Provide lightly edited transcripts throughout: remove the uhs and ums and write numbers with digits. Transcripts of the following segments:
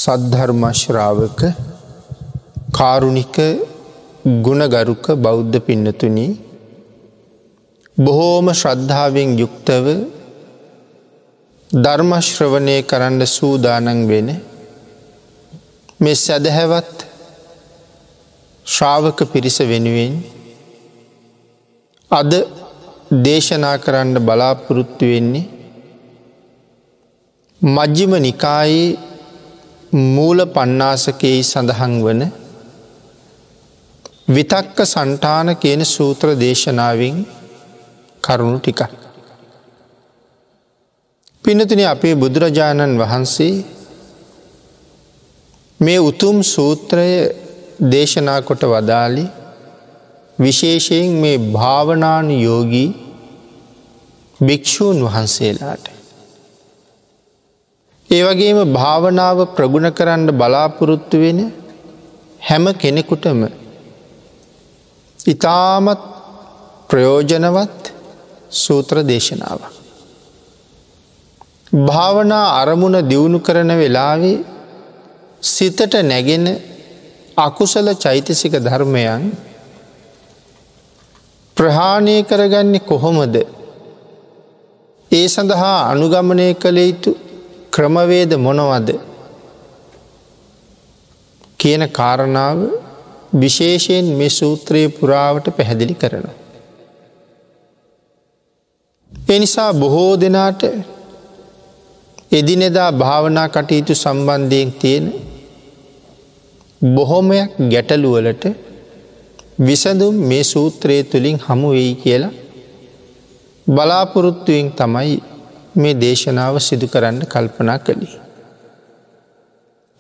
සද්ධර්ම ශ්‍රාවක කාරුණික ගුණගරුක බෞද්ධ පින්නතුනි, බොහෝම ශ්‍රද්ධාවෙන් යුක්තව ධර්ම ශ්‍රවණය කරන්න සූදානම් වෙන මේ සදහැවත් ශ්‍රාවක පිරිස වෙනුවෙන් අද දේශනා කරන්න බලාපොරොත්තු වෙන්නේ මජ්ක්‍ධිම නිකායේ මූල පණ්ණාසකයේ සඳහන් වන විතක්ක සන්තාන කියන සූත්‍ර දේශනාවෙන් කරුණු ටිකක්. පින්නතුනි, අපේ බුදුරජාණන් වහන්සේ මේ උතුම් සූත්‍රය දේශනා කොට වදාළේ විශේෂයෙන් මේ භාවනානුයෝගී භික්ෂූන් වහන්සේලාට. ඒ වගේම භාවනාව ප්‍රගුණ කරන්න බලාපොරොත්තු වෙන හැම කෙනෙකුටම ඉතාමත් ප්‍රයෝජනවත් සූත්‍ර දේශනාවක්. භාවනා අරමුණ දියුණු කරන වෙලාවේ සිතට නැගෙන අකුසල චෛතසික ධර්මයන් ප්‍රහාණය කරගන්නේ කොහොමද? ඒ සඳහා අනුගමනය කළ යුතු ක්‍රමවේද මොනවද කියන කාරණාව විශේෂයෙන් මේ සූත්‍රයේ පුරාවට පැහැදිලි කරනවා. ඒ නිසා බොහෝ දෙනාට එදිනෙදා භාවනා කටයුතු සම්බන්ධයෙන් තියෙන බොහොමයක් ගැටලු වලට විසඳුම් මේ සූත්‍රය තුලින් හමු වෙයි කියලා බලාපොරොත්තුවෙන් තමයි මේ දේශනාව සිදු කරන්න කල්පනා කළේ.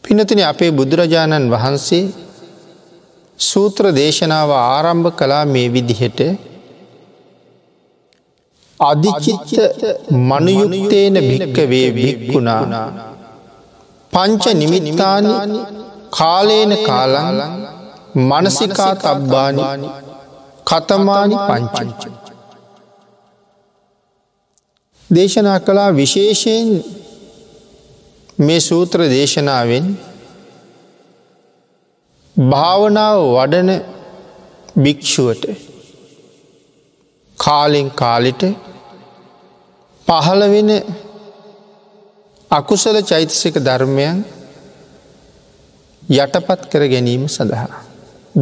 පින්නතුනි, අපේ බුදුරජාණන් වහන්සේ සූත්‍ර දේශනාව ආරම්භ කළා මේ විදිහට: අදිචිත්ත මනුයුක්තේන භික්ඛවේ භික්ඛුනා පංච නිමිත්තානි කාලේන කාලං මනසිකා තබ්බානි කතමානි පංච. දේශනා කළා විශේෂයෙන් මේ සූත්‍ර දේශනාවෙන් භාවනාව වඩන භික්ෂුවට කාලෙන් කාලෙට පහළ වෙන අකුසල චෛතසික ධර්මයන් යටපත් කර ගැනීම සඳහා,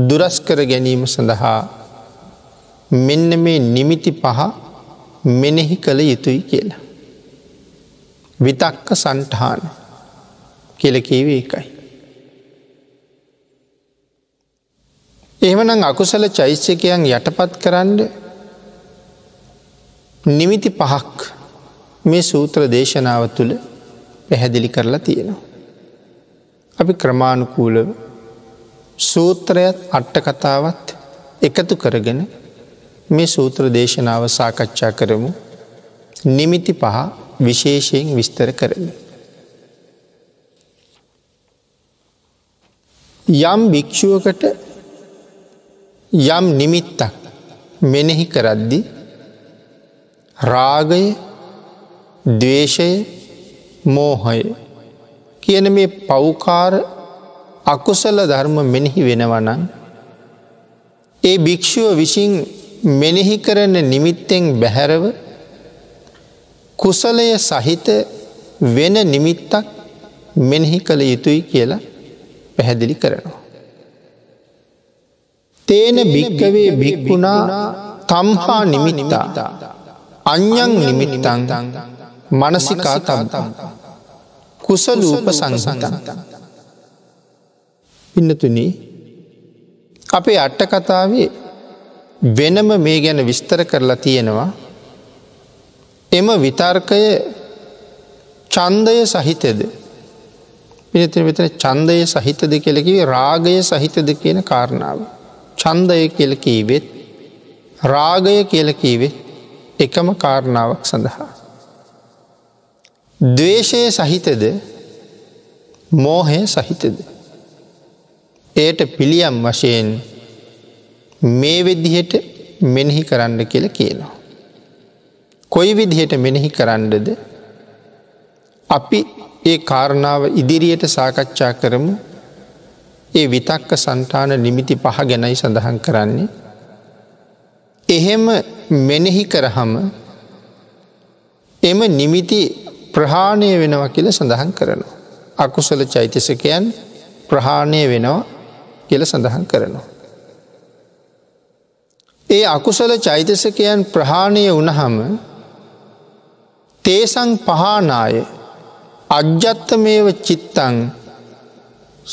දුරස් කර ගැනීම සඳහා මෙන්න මේ නිමිති පහ මෙනෙහි කළ යුතුයි කියලා. විතක්ක සන්ඨාන කියලා කියවේ ඒකයි. එහෙමනම් අකුසල චෛතසිකයන් යටපත් කරන්න නිමිති පහක් මේ සූත්‍ර දේශනාව තුළ පැහැදිලි කරලා තියෙනවා. අපි ක්‍රමානුකූලව සූත්‍රයත් අට කතාවත් එකතු කරගෙන මේ සූත්‍ර දේශනාව සාකච්ඡා කරමු. නිමිති පහ විශේෂයෙන් විස්තර කරමු. යම් භික්ෂුවකට යම් නිමිත්තක් මෙනෙහි කරද්දී රාගය, ද්වේෂය, මෝහය කියන මේ පෞකාර අකුසල ධර්ම මෙනෙහි වෙනවා නම් ඒ භික්ෂුව විසින් මෙනෙහි කරන නිමිත්තෙන් බැහැරව කුසලය සහිත වෙන නිමිත්තක් මෙනෙහි කළ යුතුයි කියලා පැහැදිලි කරනවා. තේන භික්ඛවේ භික්ඛුනා තම්හා නිමිත්තා අඤ්ඤං නිමිත්තං මනසිකා තබ්බං කුසලූපසංහිතං. පින්නතුනි, අපේ අට කතාවේ වෙනම මේ ගැන විස්තර කරලා තියෙනවා. එම විතර්කය ඡන්දය සහිතද? පින්නතුනි, මෙතන ඡන්දය සහිතද කියලා කිව්වේ රාගය සහිතද කියන කාරණාව. ඡන්දය කියලා කිව්වෙත් රාගය කියලා කිව්වෙත් එකම කාරණාවක් සඳහා. ද්වේෂය සහිතද මෝහය සහිතද? එයට පිළියම් වශයෙන් මේ විදිහට මෙනෙහි කරන්න කියලා කියනවා. කොයි විදිහට මෙනෙහි කරන්නද? අපි ඒ කාරණාව ඉදිරියට සාකච්ඡා කරමු. ඒ විතක්ක සංතාන නිමිති පහ ගැනයි සඳහන් කරන්නේ. එහෙම මෙනෙහි කරාම එම නිමිති ප්‍රහාණය වෙනවා කියලා සඳහන් කරනවා. අකුසල චෛතසිකයන් ප්‍රහාණය වෙනවා කියලා සඳහන් කරනවා. ඒ අකුසල චෛතසිකයන් ප්‍රහාණය වුණහම තේසං පහානාය අජ්ජත්තමේව චිත්තං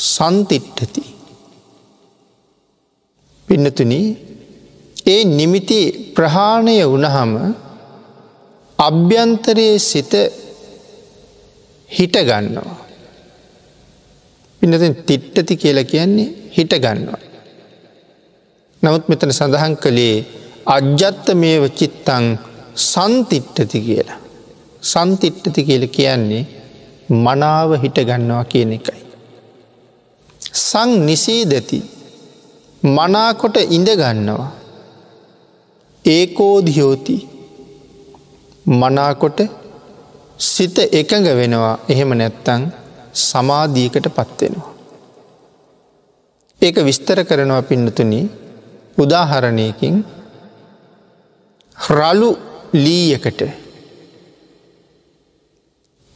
සන්තිට්ඨති. පින්නතුනි, ඒ නිමිති ප්‍රහාණය වුණහම අභ්‍යන්තරයේ සිත හිට ගන්නවා. පින්නතුනි, තිට්ඨති කියලා කියන්නේ හිට ගන්නවා. නමුත් මෙතන සඳහන් කළේ අජ්ජත්තමේව චිත්තං සන්තිට්ඨති කියලා. සන්තිට්ඨති කියලා කියන්නේ මනාව හිට ගන්නවා කියන එකයි. සං නිසීදති, මනාකොට ඉඳ ගන්නවා. ඒකෝධියෝති, මනාකොට සිත එකඟ වෙනවා. එහෙම නැත්තම් සමාධියකට පත් වෙනවා. ඒක විස්තර කරනවා පින්නතුනි උදාහරණයකින්. රළු ලීයකට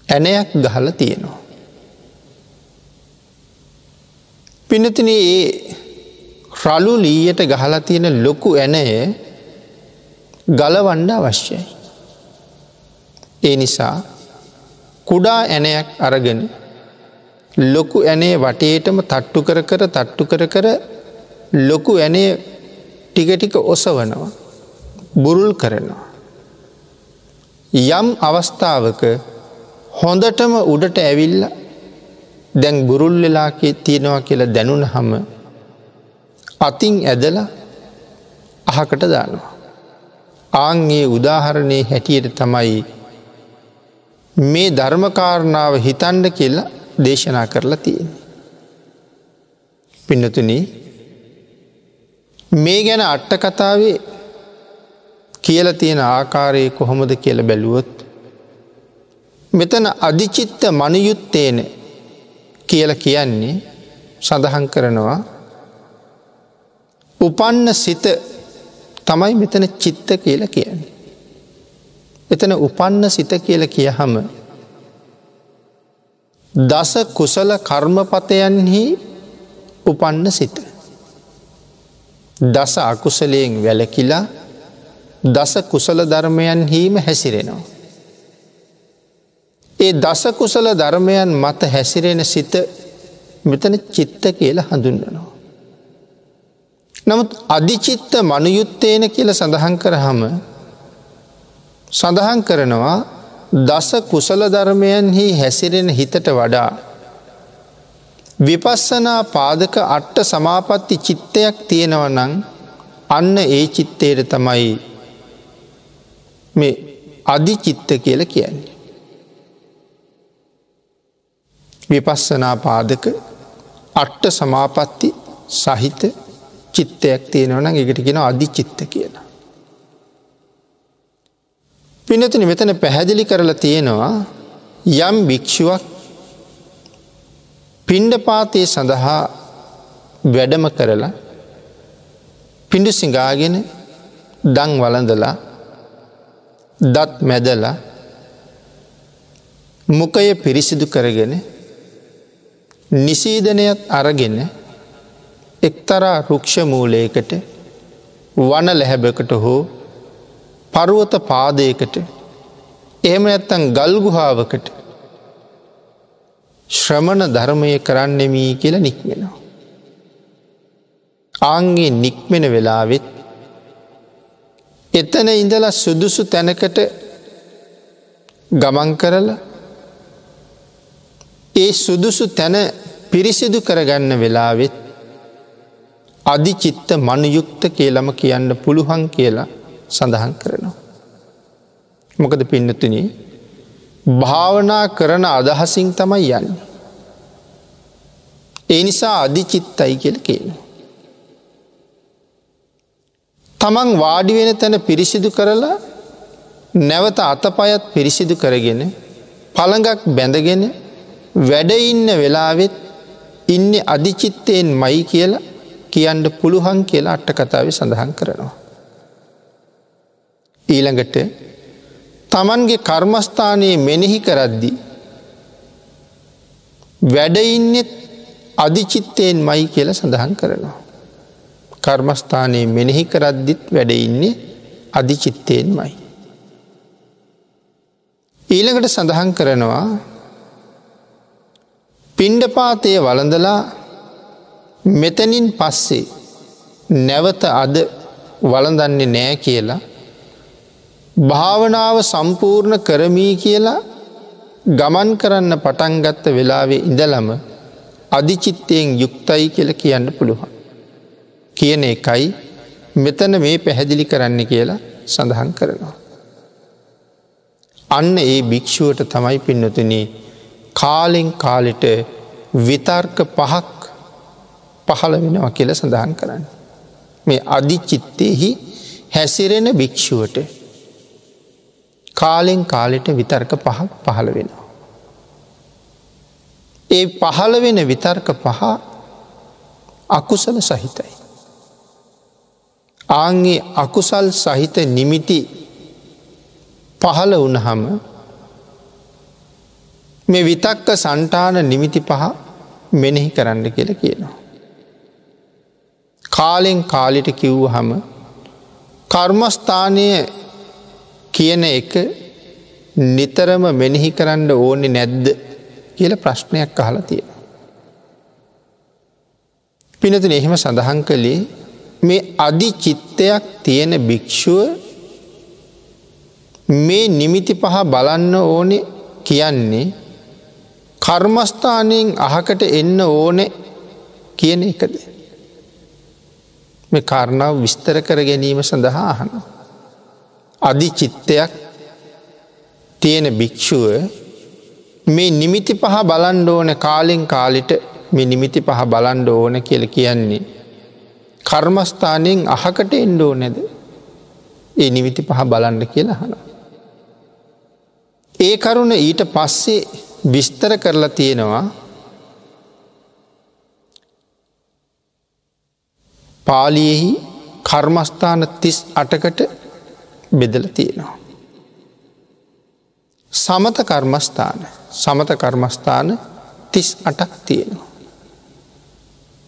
ඇණයක් ගහලා තියෙනවා. පින්නතුනි, ඒ රළු ලීයට ගහලා තියෙන ලොකු ඇණය ගලවන්න අවශ්‍යයි. ඒ නිසා කුඩා ඇණයක් අරගෙන ලොකු ඇණේ වටේටම තට්ටු කර කර තට්ටු කර කර ලොකු ඇණේ ටික ටික ඔසවනවා, බුරුල් කරනවා. යම් අවස්ථාවක හොඳටම උඩට ඇවිල්ලා දැන් බුරුල් වෙලා තියෙනවා කියලා දැනුණහම අතින් ඇදලා අහකට දානවා. ආන් ඒ උදාහරණයේ හැටියට තමයි මේ ධර්ම කාරණාව හිතන්න කියලා දේශනා කරලා තියෙන්නේ. පින්නතුනි, මේ ගැන අට කතාවේ කියලා තියෙන ආකාරය කොහොමද කියලා බැලුවොත් මෙතන අධිචිත්ත මනුයුත්තේන කියලා කියන්නේ සඳහන් කරනවා උපන්න සිත තමයි මෙතන චිත්ත කියලා කියන්නේ. එතන උපන්න සිත කියලා කියහම දස කුසල කර්මපතයන්හි උපන්න සිත. දස අකුසලයෙන් වැළකීලා දස කුසල ධර්මයන්හිම හැසිරෙනවා. ඒ දස කුසල ධර්මයන් මත හැසිරෙන සිත මෙතන චිත්ත කියලා හඳුන්වනවා. නමුත් අධිචිත්ත මනුයුත්තේන කියලා සඳහන් කරාම සඳහන් කරනවා දස කුසල ධර්මයන්හි හැසිරෙන හිතට වඩා විපස්සනා පාදක අට්ඨ සමාපatti චිත්තයක් තියෙනවා නම් අන්න ඒ චිත්තයට තමයි මේ අධිචිත්ත කියලා කියන්නේ. විපස්සනා පාදක අට්ඨ සමාපatti සහිත චිත්තයක් තියෙනවා නම් ඒකට කියනවා අධිචිත්ත කියලා. පින්නතුනි, මෙතන පැහැදිලි කරලා තියෙනවා යම් භික්ෂුවක් පිණ්ඩපාතයේ සඳහා වැඩම කරලා පිඬු සිඟාගෙන දන් වළඳලා දත් මැදලා මුඛය පිරිසිදු කරගෙන නිසීදනයත් අරගෙන එක්තරා රුක්ෂ මූලයකට වන ලැහැබකට හෝ පර්වත පාදයකට එහෙම නැත්නම් ගල් ගුහාවකට ශ්‍රමණ ධර්මය කරන්නෙමි කියලා නික්මෙනවා. ආන්ගේ නික්මෙන වෙලාවෙත් එතන ඉඳලා සුදුසු තැනකට ගමන් කරලා ඒ සුදුසු තැන පිරිසිදු කරගන්න වෙලාවෙත් අධිචිත්ත මනුයුක්ත කියලාම කියන්න පුළුවන් කියලා සඳහන් කරනවා. මොකද පින්නතුනි, භාවනා කරන අදහසින් තමයි යන්නේ. ඒ නිසා අධිචිත්තයි කියලා කියනවා. තමන් වාඩි වෙන තැන පිරිසිදු කරලා නැවත අතපයත් පිරිසිදු කරගෙන පළඟක් බැඳගෙන වැඩ ඉන්න වෙලාවෙත් ඉන්නේ අධිචිත්තයෙන්මයි කියලා කියන්න පුළුවන් කියලා අට කතාවේ සඳහන් කරනවා. ඊළඟට තමන්ගේ කර්මස්ථානයේ මෙනෙහි කරද්දී වැඩ ඉන්නේ අධිචිත්තයෙන්මයි කියලා සඳහන් කරනවා. කර්මස්ථානයේ මෙනෙහි කරද්දිත් වැඩ ඉන්නේ අධිචිත්තයෙන්මයි. ඊළඟට සඳහන් කරනවා පිණ්ඩපාතය වළඳලා මෙතනින් පස්සේ නැවත අද වළඳන්නේ නෑ කියලා භාවනාව සම්පූර්ණ කරමි කියලා ගමන් කරන්න පටන් ගත්ත වෙලාවේ ඉඳලම අධිචිත්තයෙන් යුක්තයි කියලා කියන්න පුළුවන් කියන එකයි මෙතන මේ පැහැදිලි කරන්න කියලා සඳහන් කරනවා. අන්න ඒ භික්ෂුවට තමයි පින්නතුනි කාලෙන් කාලෙට විතර්ක පහක් පහළ වෙනවා කියලා සඳහන් කරන්නේ. මේ අධිචිත්තෙහි හැසිරෙන භික්ෂුවට කාලෙන් කාලෙට විතර්ක පහක් පහළ වෙනවා. ඒ පහළ වෙන විතර්ක පහ අකුසල සහිතයි. ආන්ගේ අකුසල් සහිත නිමිති පහළ වුණහම මේ විතක්ක සන්තාන නිමිති පහ මෙනෙහි කරන්න කියලා කියනවා. කාලෙන් කාලෙට කිව්වහම කර්මස්ථානය කියන එක නිතරම මෙනෙහි කරන්න ඕනේ නැද්ද කියලා ප්‍රශ්නයක් අහලා තියෙනවා. පින්නතුනි, එහෙම සඳහන් කළේ මේ අධි චිත්තයක් තියෙන භික්ෂුව මේ නිමිති පහ බලන්න ඕනේ කියන්නේ කර්මස්ථානයෙන් අහකට එන්න ඕනේ කියන එකද? මේ කාරණාව විස්තර කර ගැනීම සඳහා අහනවා. අධි චිත්තයක් තියෙන භික්ෂුව මේ නිමිති පහ බලන්න ඕනේ කාලෙන් කාලෙට මේ නිමිති පහ බලන්න ඕන කියලා කියන්නේ කර්මස්ථානයෙන් අහකට එන්න ඕනේද? ඒ නිමිති පහ බලන්න කියලා අහනවා. ඒ කරුණ ඊට පස්සේ විස්තර කරලා තියෙනවා පාලියෙහි කර්මස්ථාන 38කට බෙදලා තියෙනවා. සමත කර්මස්ථාන, සමත කර්මස්ථාන 38ක් තියෙනවා.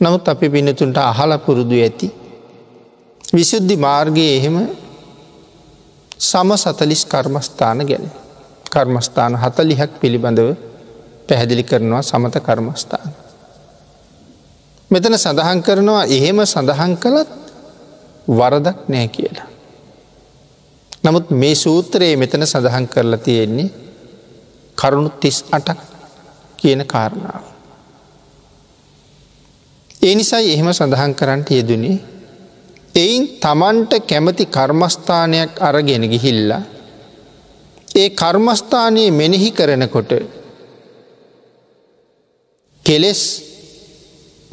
නමුත් අපි පින්නතුන්ට අහලා පුරුදු ඇති විසුද්ධි මාර්ගයේ එහෙම සම 40 කර්මස්ථාන ගැන, කර්මස්ථාන 40ක් පිළිබඳව පැහැදිලි කරනවා සමත කර්මස්ථාන. මෙතන සඳහන් කරනවා එහෙම සඳහන් කළත් වරදක් නෑ කියලා. නමුත් මේ සූත්‍රයේ මෙතන සඳහන් කරලා තියෙන්නේ කරුණු 38ක් කියන කාරණාව. ඒ නිසායි එහෙම සඳහන් කරන්නට යෙදුනේ. එයින් තමන්ට කැමති කර්මස්ථානයක් අරගෙන ගිහිල්ලා ඒ කර්මස්ථානයේ මෙනෙහි කරනකොට කෙලෙස්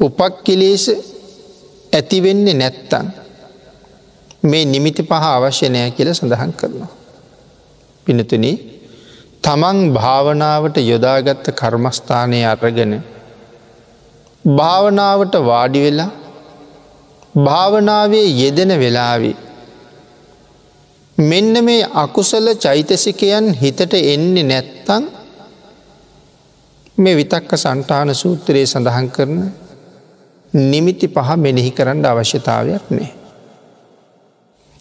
උපක්ඛිලේශ ඇති වෙන්නේ නැත්තම් මේ නිමිති පහ අවශ්‍ය නෑ කියලා සඳහන් කරනවා. පින්නතුනි, තමන් භාවනාවට යොදාගත්ත කර්මස්ථානයේ අරගෙන භාවනාවට වාඩි වෙලා භාවනාවේ යෙදෙන වෙලාවේ මෙන්න මේ අකුසල චෛතසිකයන් හිතට එන්නේ නැත්තම් මේ විතක්ක සන්තාන සූත්‍රයේ සඳහන් කරන නිමිති පහ මෙනෙහි කරන්න අවශ්‍යතාවයක් නෑ.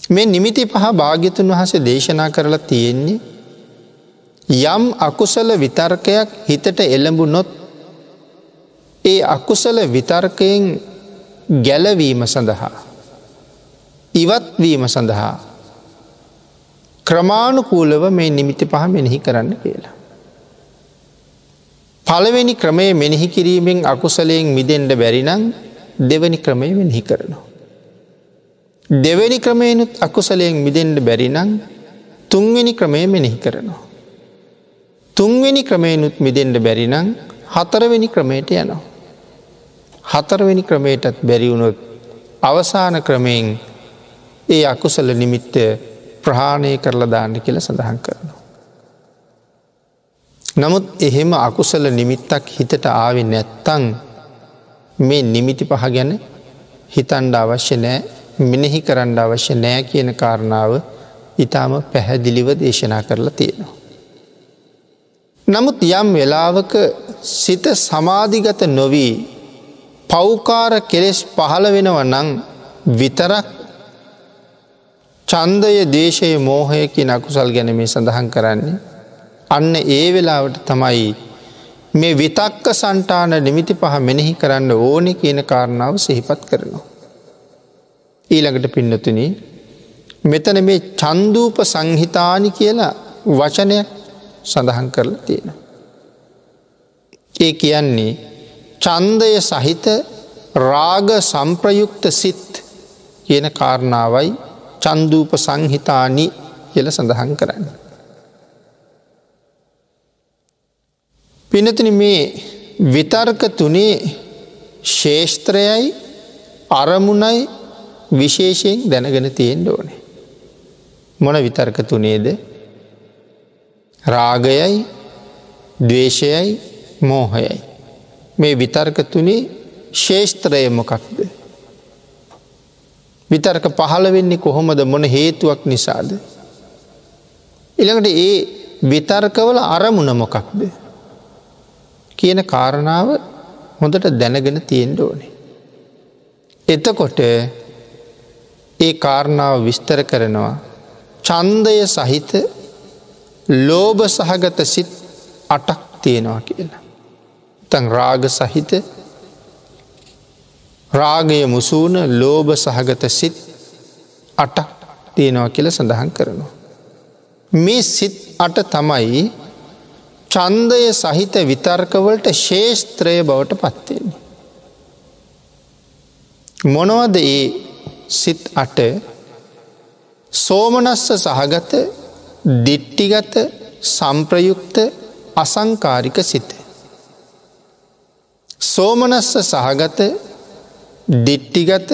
මේ නිමිති පහ භාග්‍යතුන් වහන්සේ දේශනා කරලා තියෙන්නේ යම් අකුසල විතර්කයක් හිතට එළඹුණොත් ඒ අකුසල විතර්කයෙන් ගැලවීම සඳහා, ඉවත් වීම සඳහා ක්‍රමානුකූලව මේ නිමිති පහ මෙනෙහි කරන්න කියලා. පළවෙනි ක්‍රමය මෙනෙහි කිරීමෙන් අකුසලයෙන් මිදෙන්න බැරි නම් දෙවෙනි ක්‍රමය මෙනෙහි කරනවා. දෙවෙනි ක්‍රමයෙනුත් අකුසලයෙන් මිදෙන්න බැරි නම් තුන්වෙනි ක්‍රමය මෙනෙහි කරනවා. තුන්වෙනි ක්‍රමයෙනුත් මිදෙන්න බැරි නම් හතරවෙනි ක්‍රමයට යනවා. හතරවෙනි ක්‍රමයටත් බැරි වුණොත් අවසාන ක්‍රමයෙන් ඒ අකුසල නිමිත්ත ප්‍රහාණය කරලා දාන්න කියලා සඳහන් කරනවා. නමුත් එහෙම අකුසල නිමිත්තක් හිතට ආවේ නැත්තම් මේ නිමිති පහ ගැන හිතන්න අවශ්‍ය නෑ, මෙනෙහි කරන්න අවශ්‍ය නෑ කියන කාරණාව ඊටාම පැහැදිලිව දේශනා කරලා තියෙනවා. නමුත් යම් වෙලාවක සිත සමාධිගත නොවි පෞකාර කෙලෙස් පහළ වෙනවා නම් විතරක් ඡන්දය, දේශය, මෝහය කියන අකුසල් ගැන මේ සඳහන් කරන්නේ. අන්න ඒ වෙලාවට තමයි මේ විතක්ක සන්තාන නිමිති පහ මෙනෙහි කරන්න ඕනේ කියන කාරණාව සිහිපත් කරනවා. ඊළඟට පින්නතුනි, මෙතන මේ චන්දූප සංහිතානි කියලා වචනයක් සඳහන් කරලා තියෙනවා. ඒ කියන්නේ ඡන්දය සහිත රාග සම්ප්‍රයුක්ත සිත් කියන කාරණාවයි චන්දූප සංහිතානි කියලා සඳහන් කරන්නේ. පින්නතුනි, මේ විතර්ක තුනේ ශේෂ්ත්‍රයයි අරමුණයි විශේෂයෙන් දැනගෙන තියෙන්න ඕනේ. මොන විතර්ක තුනේද? රාගයයි, ද්වේෂයයි, මෝහයයි. මේ විතර්ක තුනේ ශේෂ්ත්‍රය මොකක්ද? විතර්ක පහළ වෙන්නේ කොහොමද, මොන හේතුවක් නිසාද? ඊළඟට ඒ විතර්කවල අරමුණ මොකක්ද කියන කාරණාව හොඳට දැනගෙන තියෙන්න ඕනේ. එතකොට ඒ කාරණාව විස්තර කරනවා ඡන්දය සහිත ලෝභ සහගත සිත් 8ක් තියෙනවා කියලා. නැත්නම් රාග සහිත, රාගය මුසුන ලෝභ සහගත සිත් 8ක් තියෙනවා කියලා සඳහන් කරනවා. මේ සිත් 8 තමයි ඡන්දය සහිත විතර්ක වලට ශේෂ්ත්‍රය බවට පත් වෙන්නේ. මොනවද ඒ සිත් 8? සෝමනස්ස සහගත, දිට්ඨිගත, සම්ප්‍රයුක්ත, අසංකාරික සිත. සෝමනස්ස සහගත, දිට්ඨිගත,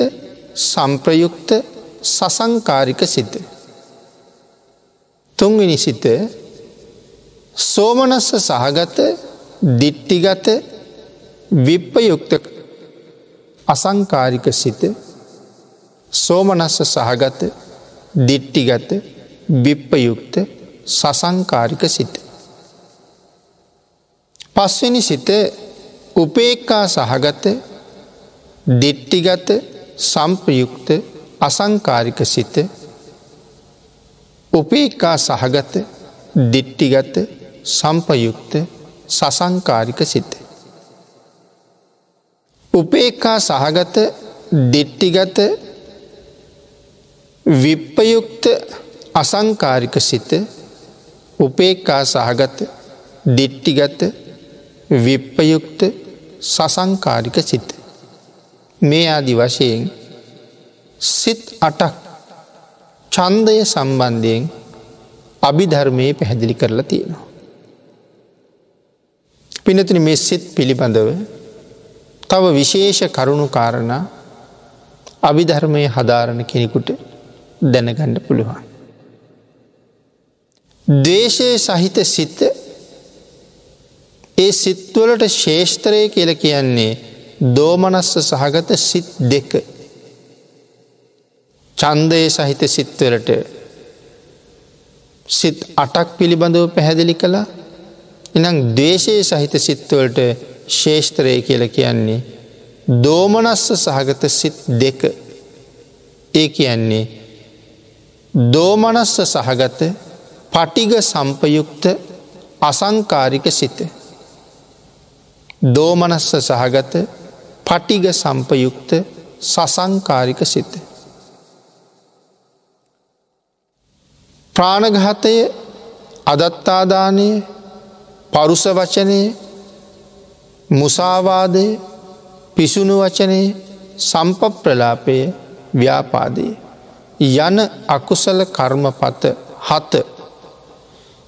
සම්ප්‍රයුක්ත, සසංකාරික සිත. තුන්වෙනි සිත සෝමනස්ස සහගත, දිට්ඨිගත, විප්පයුක්ත, අසංකාරික සිත. සෝමනස්ස සහගත, දිට්ඨිගත, විප්පයුක්ත, සසංකාරික සිත. පස්වෙනි සිත උපේක්ඛා සහගත, දිට්ඨිගත, සම්ප්‍රයුක්ත, අසංකාරික සිත. උපේක්ඛා සහගත, දිට්ඨිගත, සම්පයුක්ත, සසංකාරික සිත. උපේක්ඛා සහගත, දිට්ඨිගත, විප්පයුක්ත, අසංකාරික සිත. උපේක්ඛා සහගත, දිට්ඨිගත, විප්පයුක්ත, සසංකාරික සිත. මේ ආදි වශයෙන් සිත් 8ක් ඡන්දය සම්බන්ධයෙන් අභිධර්මයේ පැහැදිලි කරලා තියෙනවා. පින්නතුනි, මේ සිත් පිළිබඳව තව විශේෂ කරුණු කාරණා අභිධර්මයේ හදාරන කෙනෙකුට දැනගන්න පුළුවන්. ද්වේෂය සහිත සිත, ඒ සිත්වලට ශේෂ්ත්‍රය කියලා කියන්නේ දෝමනස්ස සහගත සිත් දෙක. ඡන්දය සහිත සිත්වලට සිත් 8ක් පිළිබඳව පැහැදිලි කළා. එහෙනම් ද්වේෂය සහිත සිත්වලට ශේෂ්ත්‍රය කියලා කියන්නේ දෝමනස්ස සහගත සිත් දෙක. ඒ කියන්නේ දෝමනස්ස සහගත පටිඝ සම්පයුක්ත අසංකාරික සිත. දෝමනස්ස සහගත පටිඝ සම්පයුක්ත සසංකාරික සිත. ප්‍රාණඝාතය, අදත්තාදානය, පරුස වචනය, මුසාවාදය, පිසුණු වචනය, සම්පප්‍රලාපය, ව්‍යාපාදය යන අකුසල කර්මපත 7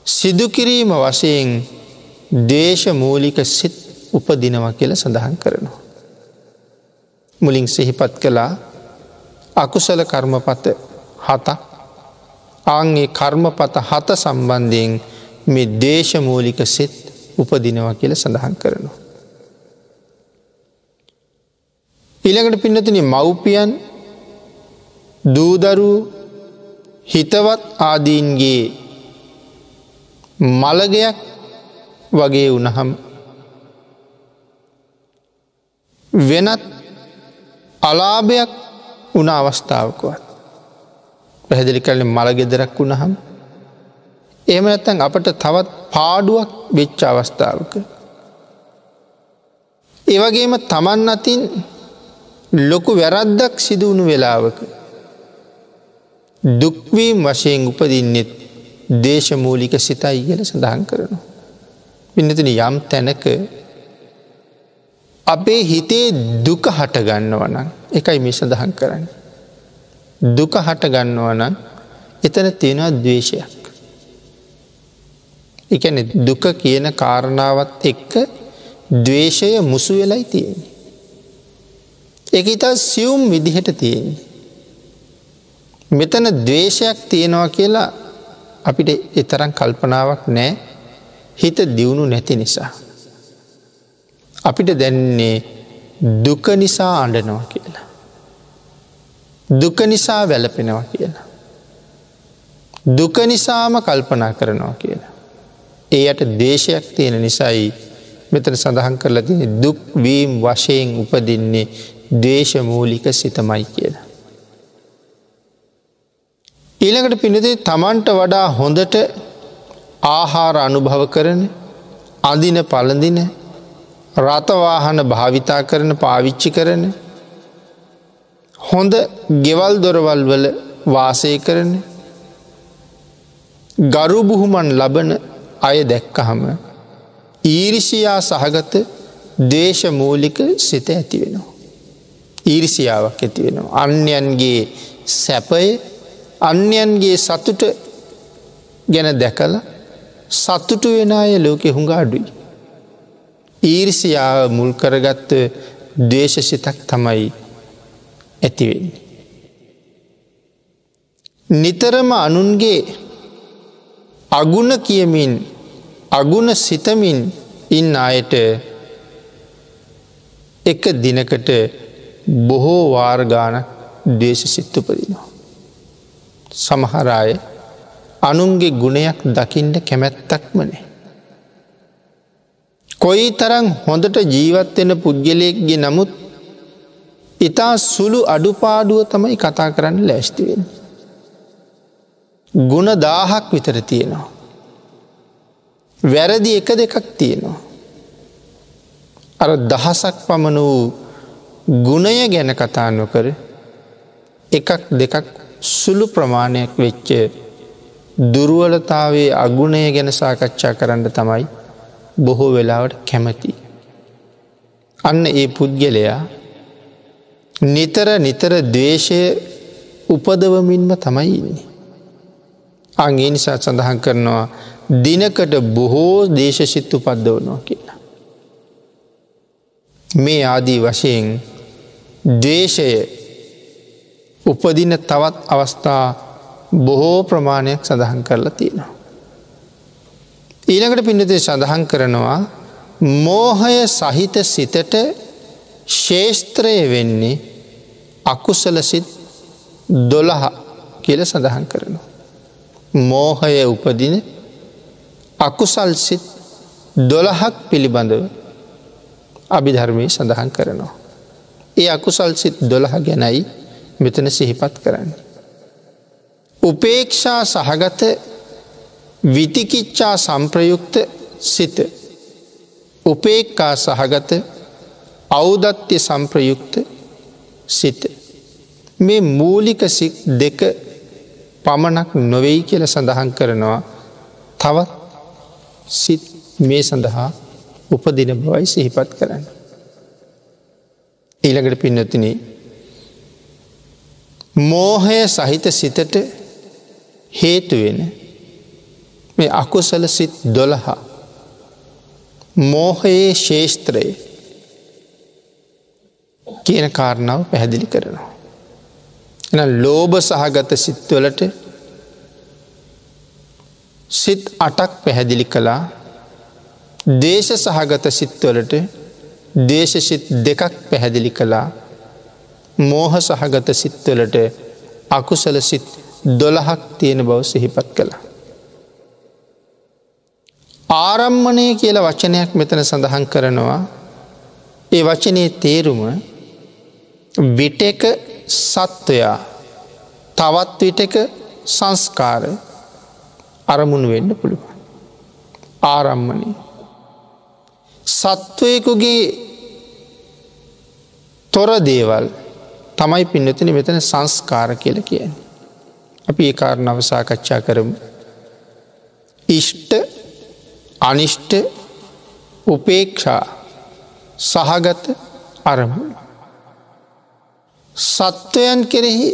සිදු කිරීම වශයෙන් ද්වේෂ මූලික සිත් උපදිනවා කියලා සඳහන් කරනවා. මුලින් සිහිපත් කළා අකුසල කර්මපත 7ක්. ආන් ඒ කර්මපත 7 සම්බන්ධයෙන් මේ ද්වේෂ මූලික සිත් උපදිනවා කියලා සඳහන් කරනවා. ඊළඟට පින්නතුනි මව්පියන් දූ දරුවෝ හිතවත් ආදීන්ගේ මළගයක් වගේ වුණහම වෙනත් අලාභයක් වුණ අවස්ථාවකවත් පැහැදිලි කරන්නේ මළ ගෙදරක් වුණහම එහෙම නැත්නම් අපට තවත් පාඩුවක් වෙච්ච අවස්ථාවක ඒ වගේම තමන් අතින් ලොකු වැරද්දක් සිදු වුණු වෙලාවක දුක් වීම වශයෙන් උපදින්නෙත් ද්වේෂමූලික සිතයි කියලා සඳහන් කරනවා. පින්නතුනි යම් තැනක අපේ හිතේ දුක හට ගන්නවා නම් ඒකයි මේ සඳහන් කරන්නේ. දුක හට ගන්නවා නම් එතන තියෙනවා ද්වේෂයක්. ඒ කියන්නේ දුක කියන කාරණාවත් එක්ක ද්වේෂය මුසු වෙලයි තියෙන්නේ. ඒක ඉතා සියුම් විදිහට තියෙන්නේ. මෙතන ද්වේෂයක් තියෙනවා කියලා අපිට ඒ තරම් කල්පනාවක් නැහැ. හිත දියුණු නැති නිසා. අපිට දැනෙන්නේ දුක නිසා අඬනවා කියලා. දුක නිසා වැළපෙනවා කියලා. දුක නිසාම කල්පනා කරනවා කියලා. ඒ යට ද්වේෂයක් තියෙන නිසායි මෙතන සඳහන් කරලා තියෙන්නේ දුක් වීම වශයෙන් උපදින්නේ ද්වේෂ මූලික සිතමයි කියලා. ඊළඟට පින්නතේ තමන්ට වඩා හොඳට ආහාර අනුභව කරන, අඳින පළඳින, රථ වාහන භාවිතා කරන, පාවිච්චි කරන, හොඳ ගෙවල් දොරවල් වල වාසය කරන, ගරු බුහුමන් ලබන අය දැක්කහම ඊර්ෂියා සහගත ද්වේෂ මූලික සිත ඇති වෙනවා. ඊර්ෂියාවක් ඇති වෙනවා. අන්‍යයන්ගේ සැපය, අන්‍යයන්ගේ සතුට ගැන දැකලා සතුටු වෙන අය ලෝකෙ හුඟ අඩුයි. ඊර්ෂියාව මුල් කරගත්ත ද්වේෂ සිතක් තමයි ඇති වෙන්නේ. නිතරම අනුන්ගේ අගුණ කියමින් අගුණ සිතමින් ඉන්න අයට එක දිනකට බොහෝ වාර ගාණක් ද්වේෂ සිත් උපදිනවා. සමහර අය අනුන්ගේ ගුණයක් දකින්න කැමැත්තක්ම නැහැ. කොයිතරම් හොඳට ජීවත් වෙන පුද්ගලයෙක්ගේ නමුත් ඉතා සුළු අඩුපාඩුව තමයි කතා කරන්න ලෑස්ති වෙන්නේ. ගුණ 1000ක් විතර තියෙනවා. වැරදි එක දෙකක් තියෙනවා. අර දහසක් පමණ වූ ගුණය ගැන කතා නොකර එකක් දෙකක් සුළු ප්‍රමාණයක් වෙච්ච දුර්වලතාවයේ අගුණය ගැන සාකච්ඡා කරන්න තමයි බොහෝ වෙලාවට කැමති. අන්න ඒ පුද්ගලයා නිතර නිතර ද්වේෂය උපදවමින්ම තමයි ඉන්නේ. අන් ඒ නිසා සඳහන් කරනවා දිනකට බොහෝ ද්වේෂසිත උපද්දවනවා කියලා. මේ ආදී වශයෙන් ද්වේෂය උපදින තවත් අවස්ථා බොහෝ ප්‍රමාණයක් සඳහන් කරලා තියෙනවා. ඊළඟට පින්නතේ සඳහන් කරනවා මෝහය සහිත සිතට ශේෂ්ත්‍රය වෙන්නේ අකුසල සිත් 12 කියලා සඳහන් කරනවා. මෝහය උපදින අකුසල් සිත් 12ක් පිළිබඳව අභිධර්මයේ සඳහන් කරනවා. ඒ අකුසල් සිත් 12 ගැනයි මෙතන සිහිපත් කරන්නේ. උපේක්ෂා සහගත විතිකිච්ඡා සම්ප්‍රයුක්ත සිත, උපේක්ඛා සහගත ඖදත්‍ය සම්ප්‍රයුක්ත සිත, මේ මූලික සිත් දෙක පමණක් නොවේයි කියලා සඳහන් කරනවා. තවත් සිත් මේ සඳහා උපදින බවයි සිහිපත් කරන්නේ. ඊළඟට පින්වත්නි, මෝහය සහිත සිතට හේතු වෙන මේ අකුසල සිත් 12 මෝහයේ ශේෂ්ත්‍රය කියන කාරණාව පැහැදිලි කරනවා. එහෙනම් ලෝභ සහගත සිත්වලට සිත් 8ක් පැහැදිලි කළා. ද්වේෂ සහගත සිත්වලට ද්වේෂ සිත් දෙකක් පැහැදිලි කළා. මෝහ සහගත සිත්වලට අකුසල සිත් 12ක් තියෙන බව සිහිපත් කළා. ආරම්මණය කියලා වචනයක් මෙතන සඳහන් කරනවා. ඒ වචනේ තේරුම විටක සත්වයා තවත් විටක සංස්කාර අරමුණු වෙන්න පුළුවන්. ආරම්මණය සත්වයෙකුගේ තොර දේවල් තමයි පින්නතුනි මෙතන සංස්කාර කියලා කියන්නේ. අපි ඒ කාරණාව සාකච්ඡා කරමු. ඉෂ්ට අනිෂ්ට උපේක්ෂා සහගත අරමුණු. සත්වයන් කෙරෙහි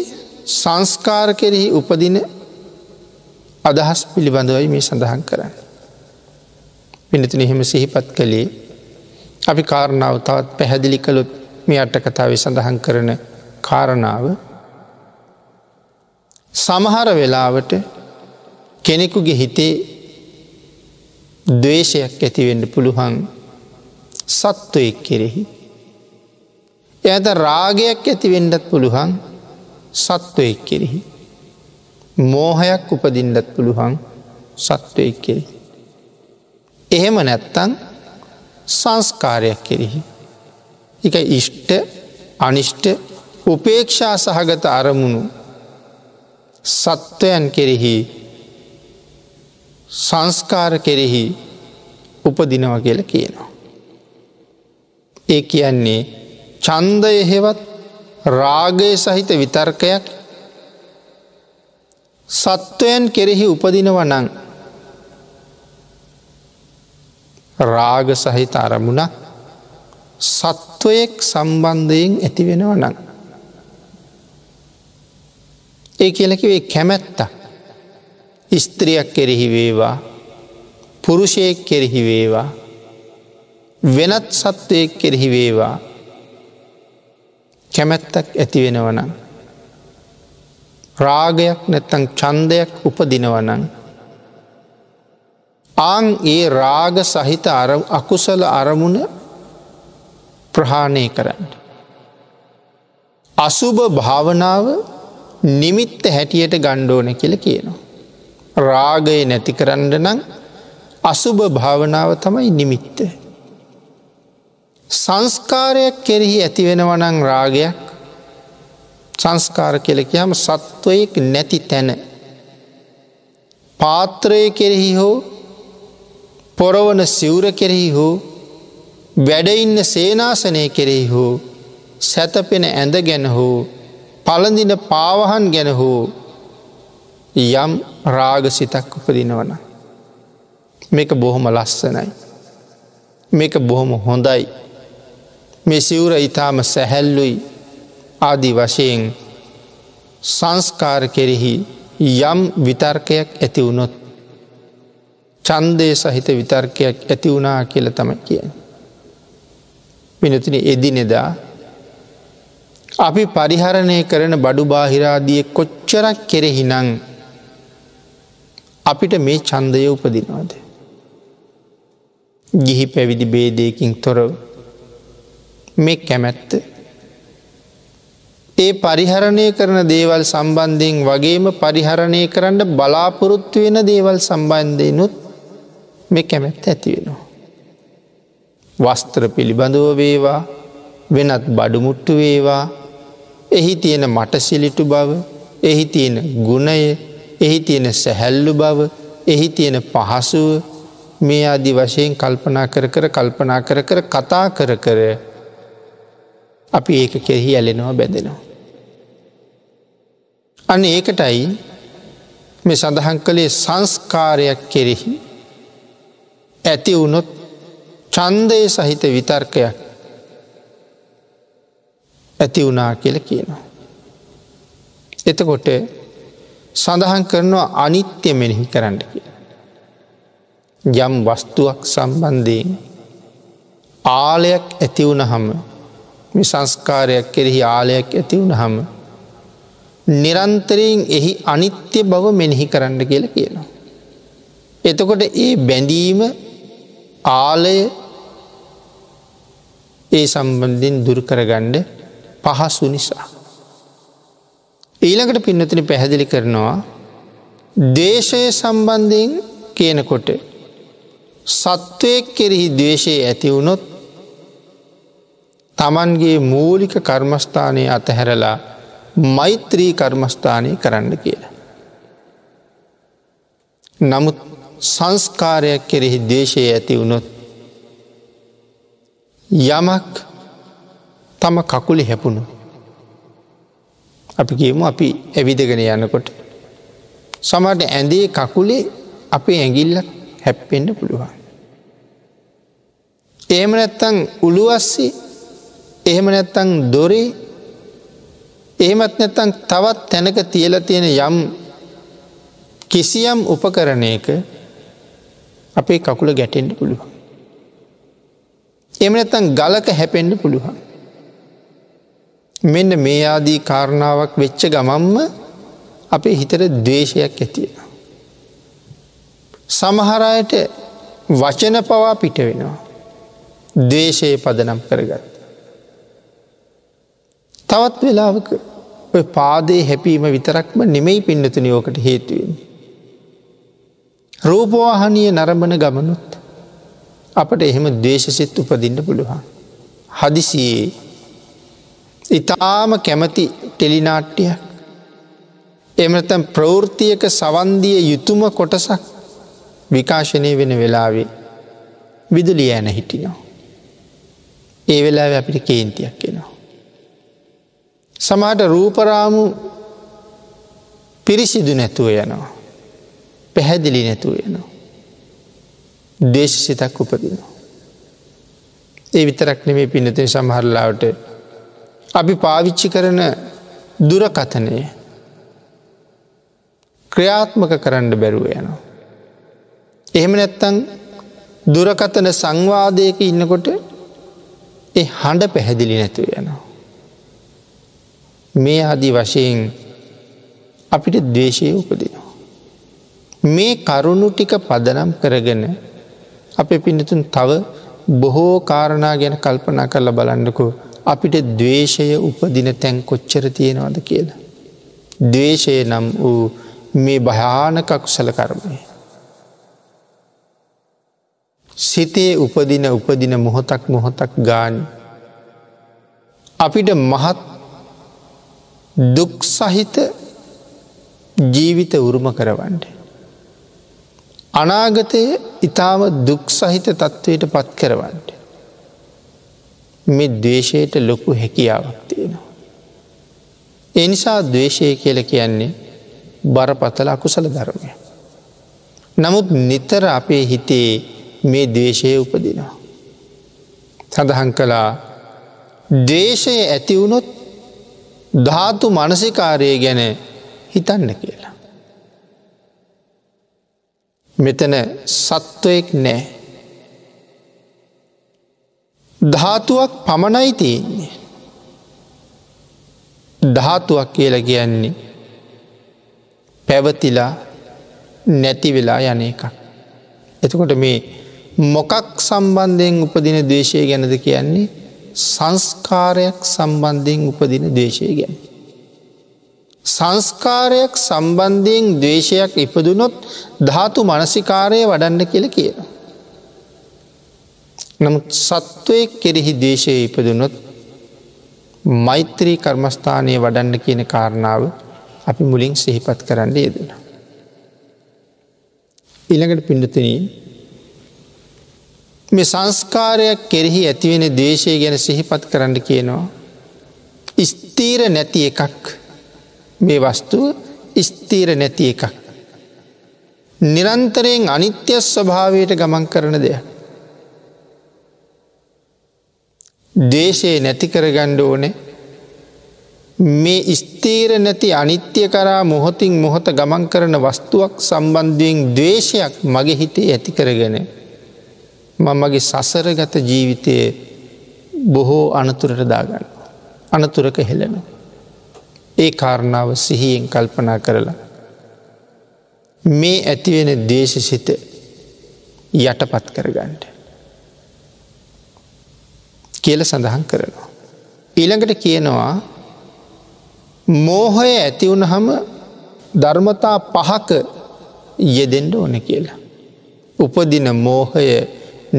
සංස්කාර කෙරෙහි උපදින අදහස් පිළිබඳවයි මේ සඳහන් කරන්නේ. පින්නතුනි එහෙම සිහිපත් කළේ අපි කාරණාව තවත් පැහැදිලි කළොත් මේ අට කතාවේ සඳහන් කරන කාරණාව සමහර වෙලාවට කෙනෙකුගේ හිතේ ද්වේෂයක් ඇති වෙන්න පුළුවන් සත්වයෙක් කෙරෙහි. එයාට රාගයක් ඇති වෙන්නත් පුළුවන් සත්වයෙක් කෙරෙහි. මෝහයක් උපදින්නත් පුළුවන් සත්වයෙක් කෙරෙහි. එහෙම නැත්තම් සංස්කාරයක් කෙරෙහි. ඒක ඉෂ්ට අනිෂ්ට උපේක්ෂා සහගත අරමුණු සත්වයන් කෙරෙහි සංස්කාර කෙරෙහි උපදිනවා කියලා කියනවා. ඒ කියන්නේ ඡන්දය හෙවත් රාගය සහිත විතර්කයක් සත්වයන් කෙරෙහි උපදිනවා නම් රාග සහිත අරමුණක් සත්වයෙක් සම්බන්ධයෙන් ඇති වෙනවා නම් ඒ කියලා කිව්වේ කැමැත්ත ස්ත්‍රියක් කෙරෙහි වේවා පුරුෂයෙක් කෙරෙහි වේවා වෙනත් සත්වයෙක් කෙරෙහි වේවා කැමැත්තක් ඇති වෙනවා නම් රාගයක් නැත්නම් ඡන්දයක් උපදිනවා නම් ආන් ඒ රාග සහිත අකුසල අරමුණ ප්‍රහාණය කරන්න. අසුභ භාවනාව නිමිත්ත හැටියට ගන්න ඕන කියලා කියනවා. රාගය නැති කරන්න නම් අසුභ භාවනාව තමයි නිමිත්ත. සංස්කාරයක් කෙරෙහි ඇති වෙනවා නම් රාගයක්, සංස්කාර කියලා කියම සත්වයෙක් නැති තැන පාත්‍රය කෙරෙහි හෝ පොරවන සිවුර කෙරෙහි හෝ වැඩ ඉන්න සේනාසනය කෙරෙහි හෝ සැතපෙන ඇඳ ගැන හෝ පළඳින පාවහන් ගැන හෝ යම් රාගසිතක් උපදිනවා නම් මේක බොහොම ලස්සනයි, මේක බොහොම හොඳයි, මේ සිවුර ඊටාම සැහැල්ලුයි ආදී වශයෙන් සංස්කාර කෙරෙහි යම් විතර්කයක් ඇති වුණොත් ඡන්දය සහිත විතර්කයක් ඇති වුණා කියලා තමයි කියන්නේ. වෙනතුනි එදිනෙදා අපි පරිහරණය කරන බඩු බාහිර ආදී කොච්චරක් කෙරෙහි නම් අපිට මේ ඡන්දය උපදිනවද? ගිහි පැවිදි භේදයකින් තොරව මේ කැමැත්ත ඒ පරිහරණය කරන දේවල් සම්බන්ධයෙන් වගේම පරිහරණය කරන්න බලාපොරොත්තු වෙන දේවල් සම්බන්ධයෙන්ුත් මේ කැමැත්ත ඇති වෙනවා. වස්ත්‍ර පිළිබඳව වේවා, වෙනත් බඩු මුට්ටු වේවා, එහි තියෙන මටසිලිටු බව, එහි තියෙන ගුණය, එහි තියෙන සැහැල්ලු බව, එහි තියෙන පහසුව මේ ආදි වශයෙන් කල්පනා කර කර කල්පනා කර කර කතා කර කර අපි ඒක කෙරෙහි ඇලෙනවා, බැඳෙනවා. අන්න ඒකටයි මේ සඳහන් කළේ සංස්කාරයක් කෙරෙහි ඇති වුණොත් ඡන්දය සහිත විතර්කයක් ඇති වුණා කියලා කියනවා. එතකොට සඳහන් කරනවා අනිත්‍ය මෙනෙහි කරන්න කියලා. යම් වස්තුවක් සම්බන්ධයෙන් ආලයක් ඇති වුණහම, මේ සංස්කාරයක් කෙරෙහි ආලයක් ඇති වුණහම නිරන්තරයෙන් එහි අනිත්‍ය බව මෙනෙහි කරන්න කියලා කියනවා. එතකොට ඒ බැඳීම ආලය ඒ සම්බන්ධයෙන් දුරු කරගන්න පහසු නිසා. ඊළඟට පින්නතුනි පැහැදිලි කරනවා ද්වේෂය සම්බන්ධයෙන් කියනකොට සත්වයෙක් කෙරෙහි ද්වේෂය ඇති වුණොත් තමන්ගේ මූලික කර්මස්ථානය අතහැරලා මෛත්‍රී කර්මස්ථානය කරන්න කියලා. නමුත් සංස්කාරයක් කෙරෙහි ද්වේෂය ඇති වුණොත් යමක් තම කකුලේ හැපුණොත්, අපි කියමු අපි ඇවිදගෙන යනකොට සමහරට ඇඳේ කකුලේ අපේ ඇඟිල්ලක් හැප්පෙන්න පුළුවන්. එහෙම නැත්නම් උළුවස්සේ, එහෙම නැත්නම් දොරේ, එහෙමත් නැත්නම් තවත් තැනක තියලා තියෙන යම් කිසියම් උපකරණයක අපේ කකුල ගැටෙන්න පුළුවන්. එහෙම නැත්නම් ගලක හැපෙන්න පුළුවන්. මෙන්න මේ ආදී කාරණාවක් වෙච්ච ගමන්ම අපේ හිතට ද්වේෂයක් ඇති වෙනවා. සමහර අයට වචන පවා පිට වෙනවා. ද්වේෂය පදනම් කරගත්ත. තවත් වෙලාවක ඔය පාදයේ හැපීම විතරක්ම නෙමෙයි පින්නතුනි ඕකට හේතු වෙන්නේ. රූපවාහිනිය නරඹන ගමනුත් අපට එහෙම ද්වේෂසිත උපදින්න පුළුවන්. හදිසියේ ඊටාම කැමති ටෙලි නාට්‍යයක්, එහෙම නැත්නම් ප්‍රවෘත්තියක සවන් දිය යුතුම කොටසක් විකාශනය වෙන වෙලාවේ විදුලිය ඇන හිටිනවා. ඒ වෙලාවේ අපිට කේන්තියක් එනවා. සමහරට රූපරාමු පිරිසිදු නැතුව යනවා, පැහැදිලි නැතුව යනවා, ද්වේෂසිතක් උපදිනවා. ඒ විතරක් නෙමෙයි පින්නතුනි, සමහර ලාවට අපි පාවිච්චි කරන දුරකථනය ක්‍රියාත්මක කරන්න බැරුව යනවා. එහෙම නැත්නම් දුරකථන සංවාදයක ඉන්නකොට ඒ හඬ පැහැදිලි නැතුව යනවා. මේ ආදී වශයෙන් අපිට ද්වේෂය උපදිනවා. මේ කරුණු ටික පදනම් කරගෙන අපේ පින්නතුන් තව බොහෝ කාරණා ගැන කල්පනා කරලා බලන්නකෝ, අපිට ද්වේෂය උපදින තැන් කොච්චර තියෙනවද කියලා. ද්වේෂය නම් වූ මේ භයානක අකුසල කර්මය සිතේ උපදින උපදින මොහොතක් මොහොතක් ගානේ අපිට මහත් දුක් සහිත ජීවිත උරුම කරවන්න, අනාගතයේ ඊටාම දුක් සහිත තත්ත්වයට පත් කරවන්න මේ ද්වේෂයට ලොකු හැකියාවක් තියෙනවා. ඒ නිසා ද්වේෂය කියලා කියන්නේ බරපතල අකුසල ධර්මයක්. නමුත් නිතර අපේ හිතේ මේ ද්වේෂය උපදිනවා. සඳහන් කළා ද්වේෂය ඇති වුණොත් ධාතු මනසිකාරය ගැන හිතන්න කියලා. මෙතන සත්වයෙක් නෑ, ධාතුවක් පමණයි තියෙන්නේ. ධාතුවක් කියලා කියන්නේ පැවතිලා නැති වෙලා යන එකක්. එතකොට මේ මොකක් සම්බන්ධයෙන් උපදින ද්වේෂය ගැනද කියන්නේ? සංස්කාරයක් සම්බන්ධයෙන් උපදින ද්වේෂය ගැන. සංස්කාරයක් සම්බන්ධයෙන් ද්වේෂයක් ඉපදුනොත් ධාතු මනසිකාරය වඩන්න කියලා කියනවා. නමුත් සත්වයෙක් කෙරෙහි ද්වේෂය ඉපදුනොත් මෛත්‍රී කර්මස්ථානය වඩන්න කියන කාරණාව අපි මුලින් සිහිපත් කරන්න යෙදුණා. ඊළඟට පින්නතුනි, මේ සංස්කාරයක් කෙරෙහි ඇතිවෙන ද්වේෂය ගැන සිහිපත් කරන්න කියනවා. ස්ථීර නැති එකක්, මේ වස්තුව ස්ථීර නැති එකක්, නිරන්තරයෙන් අනිත්‍ය ස්වභාවයට ගමන් කරන දෙයක්. ද්වේෂය නැති කරගන්න ඕනේ මේ ස්ථීර නැති අනිත්‍ය කරා මොහොතින් මොහොත ගමන් කරන වස්තුවක් සම්බන්ධයෙන් ද්වේෂයක් මගේ හිතේ ඇති කරගෙන මම මගේ සසරගත ජීවිතයේ බොහෝ අනතුරට දාගන්නවා, අනතුරක හෙළනවා. ඒ කාරණාව සිහියෙන් කල්පනා කරලා මේ ඇතිවෙන ද්වේෂසිත යටපත් කරගන්න. කියලා සඳහන් කරනවා. ඊළඟට කියනවා මෝහය ඇති වුණහම ධර්මතා පහක යෙදෙන්න ඕන කියලා. උපදින මෝහය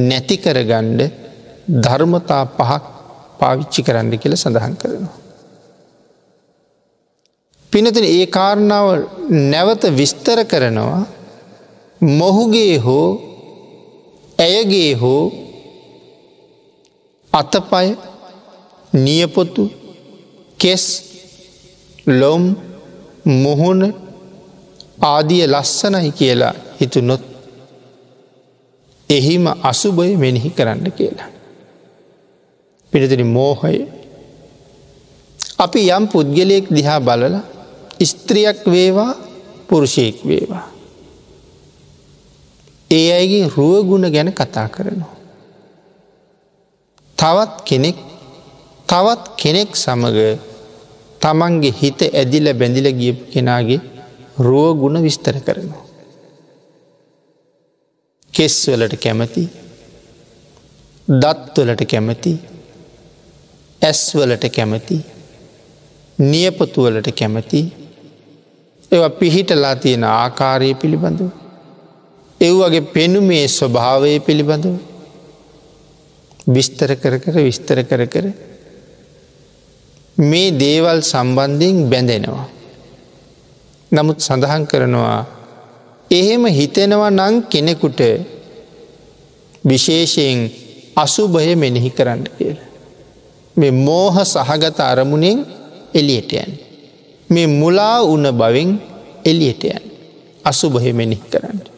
නැති කරගන්න ධර්මතා පහක් පාවිච්චි කරන්න කියලා සඳහන් කරනවා. පින්නතුනි, ඒ කාරණාව නැවත විස්තර කරනවා. මොහුගේ හෝ ඇයගේ හෝ අතපය, නියපොතු, කෙස්, ලොම්, මුහුණ ආදිය ලස්සනයි කියලා හිතුනොත් එහිම අසුභය මෙනෙහි කරන්න කියලා. පින්නතුනි, මෝහය අපි යම් පුද්ගලයෙක් දිහා බලලා ස්ත්‍රියක් වේවා පුරුෂයෙක් වේවා ඒ අයගේ රුව ගුණ ගැන කතා කරනවා. තවත් කෙනෙක් සමග තමන්ගේ හිත ඇදිලා බැඳිලා ගියපු කෙනාගේ රුව ගුණ විස්තර කරනවා. කෙස් වලට කැමති, දත් වලට කැමති, ඇස් වලට කැමති, නියපොතු වලට කැමති, ඒවා පිහිටලා තියෙන ආකාරය පිළිබඳව, ඒ වගේ පෙනුමේ ස්වභාවය පිළිබඳව විස්තර කර කර විස්තර කර කර මේ දේවල් සම්බන්ධයෙන් බැඳෙනවා. නමුත් සඳහන් කරනවා එහෙම හිතෙනවා නම් කෙනෙකුට විශේෂයෙන් අසුභය මෙනෙහි කරන්න කියලා. මේ මෝහ සහගත අරමුණෙන් එළියට යන්න. මේ මුලා වුණ බවෙන් එළියට යන්න. අසුභය මෙනෙහි කරන්න.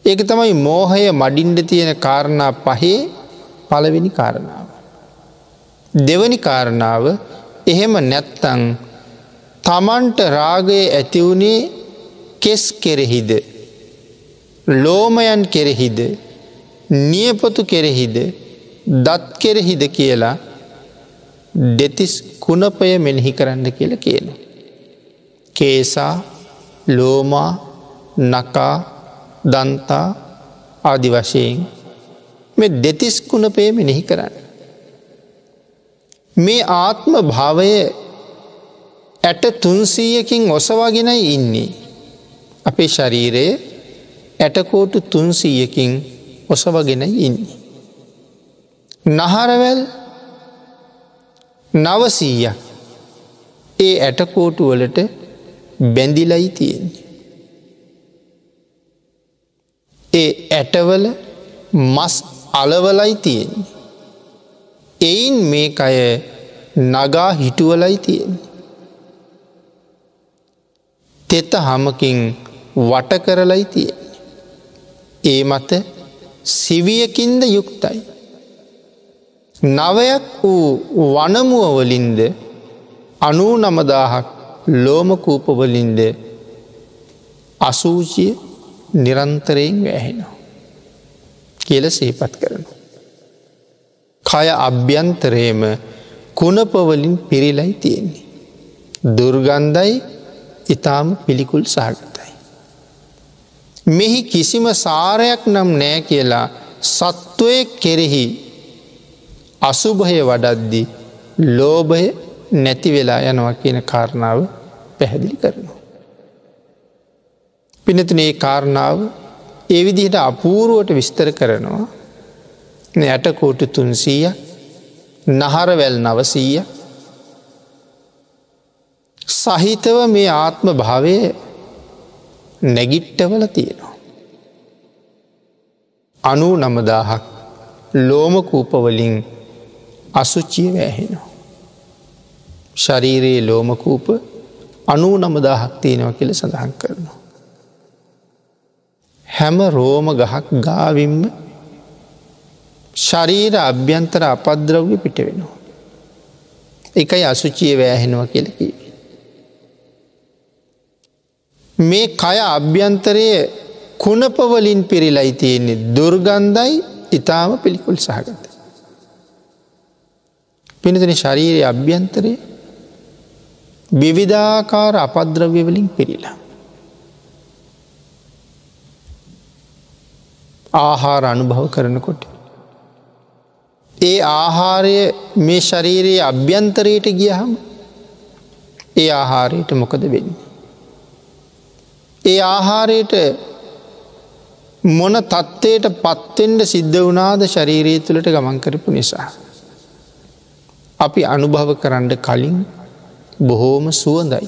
ඒක තමයි මෝහය මඩින්න තියෙන කාරණා පහේ පළවෙනි කාරණාව. දෙවෙනි කාරණාව, එහෙම නැත්තම් තමන්ට රාගය ඇති වුණේ කෙස් කෙරෙහිද, ලෝමයන් කෙරෙහිද, නියපොතු කෙරෙහිද, දත් කෙරෙහිද කියලා දෙතිස් කුණපය මෙනෙහි කරන්න කියලා කියනවා. කේසා, ලෝමා, නකා, දන්තා ආදි වශයෙන් මේ දෙතිස් කුණපය මෙනෙහි කරන්න. මේ ආත්ම භාවය ඇට 300කින් ඔසවාගෙනයි ඉන්නේ. අපේ ශරීරය ඇටකෝටු 300කින් ඔසවගෙනයි ඉන්නේ. නහරවැල් 900ක් ඒ ඇටකෝටු වලට බැඳිලයි තියෙන්නේ. ඒ ඇටවල මස් අලවලයි තියෙන්නේ. එයින් මේ කය නගා හිටුවලයි තියෙන්නේ. තෙත හමකින් වට කරලයි තියෙන්නේ. ඒ මත සිවියකින්ද යුක්තයි. නවයක් වූ වනමුව වලින්ද 99000ක් ලෝමකූප වලින්ද අසූචිය නිරන්තරයෙන් වැහෙනවා කියලා සිහිපත් කරනවා. කය අභ්‍යන්තරයේම කුණප වලින් පිරීලයි තියෙන්නේ. දුර්ගන්ධයි, ඊටාම පිළිකුල් සහගතයි. මෙහි කිසිම සාරයක් නම් නෑ කියලා සත්වයේ කෙරෙහි අසුභය වඩද්දී ලෝභය නැති වෙලා යනවා කියන කාරණාව පැහැදිලි කරනවා. පින්නතුනේ, මේ කාරණාව ඒ විදිහට අපූර්වට විස්තර කරනවා. ඇටකෝටු 300ක්, නහරවැල් 900ක් සහිතව මේ ආත්ම භාවය නැගිට්ටවල තියෙනවා. 99000ක් ලෝමකූප වලින් අසුචිය වැහෙනවා. ශරීරයේ ලෝමකූප 99000ක් තියෙනවා කියලා සඳහන් කරනවා. හැම රෝම ගහක් ගාවින්ම ශරීර අභ්‍යන්තර අපද්‍රව්‍ය පිට වෙනවා. ඒකයි අසුචිය වැහෙනවා කියලා කිව්වේ. මේ කය අභ්‍යන්තරයේ කුණප වලින් පිරීලයි තියෙන්නේ. දුර්ගන්ධයි, ඊටාම පිළිකුල් සහගතයි. පින්නතුනි, ශරීරයේ අභ්‍යන්තරයේ විවිධාකාර අපද්‍රව්‍ය වලින් පිරීලා. ආහාර අනුභව කරනකොට ඒ ආහාරය මේ ශරීරයේ අභ්‍යන්තරයට ගියහම ඒ ආහාරයට මොකද වෙන්නේ? ඒ ආහාරයට මොන තත්ත්වයට පත්වෙන්න සිද්ධ වුණාද ශරීරය තුළට ගමන් කරපු නිසා? අපි අනුභව කරන්න කලින් බොහෝම සුවඳයි.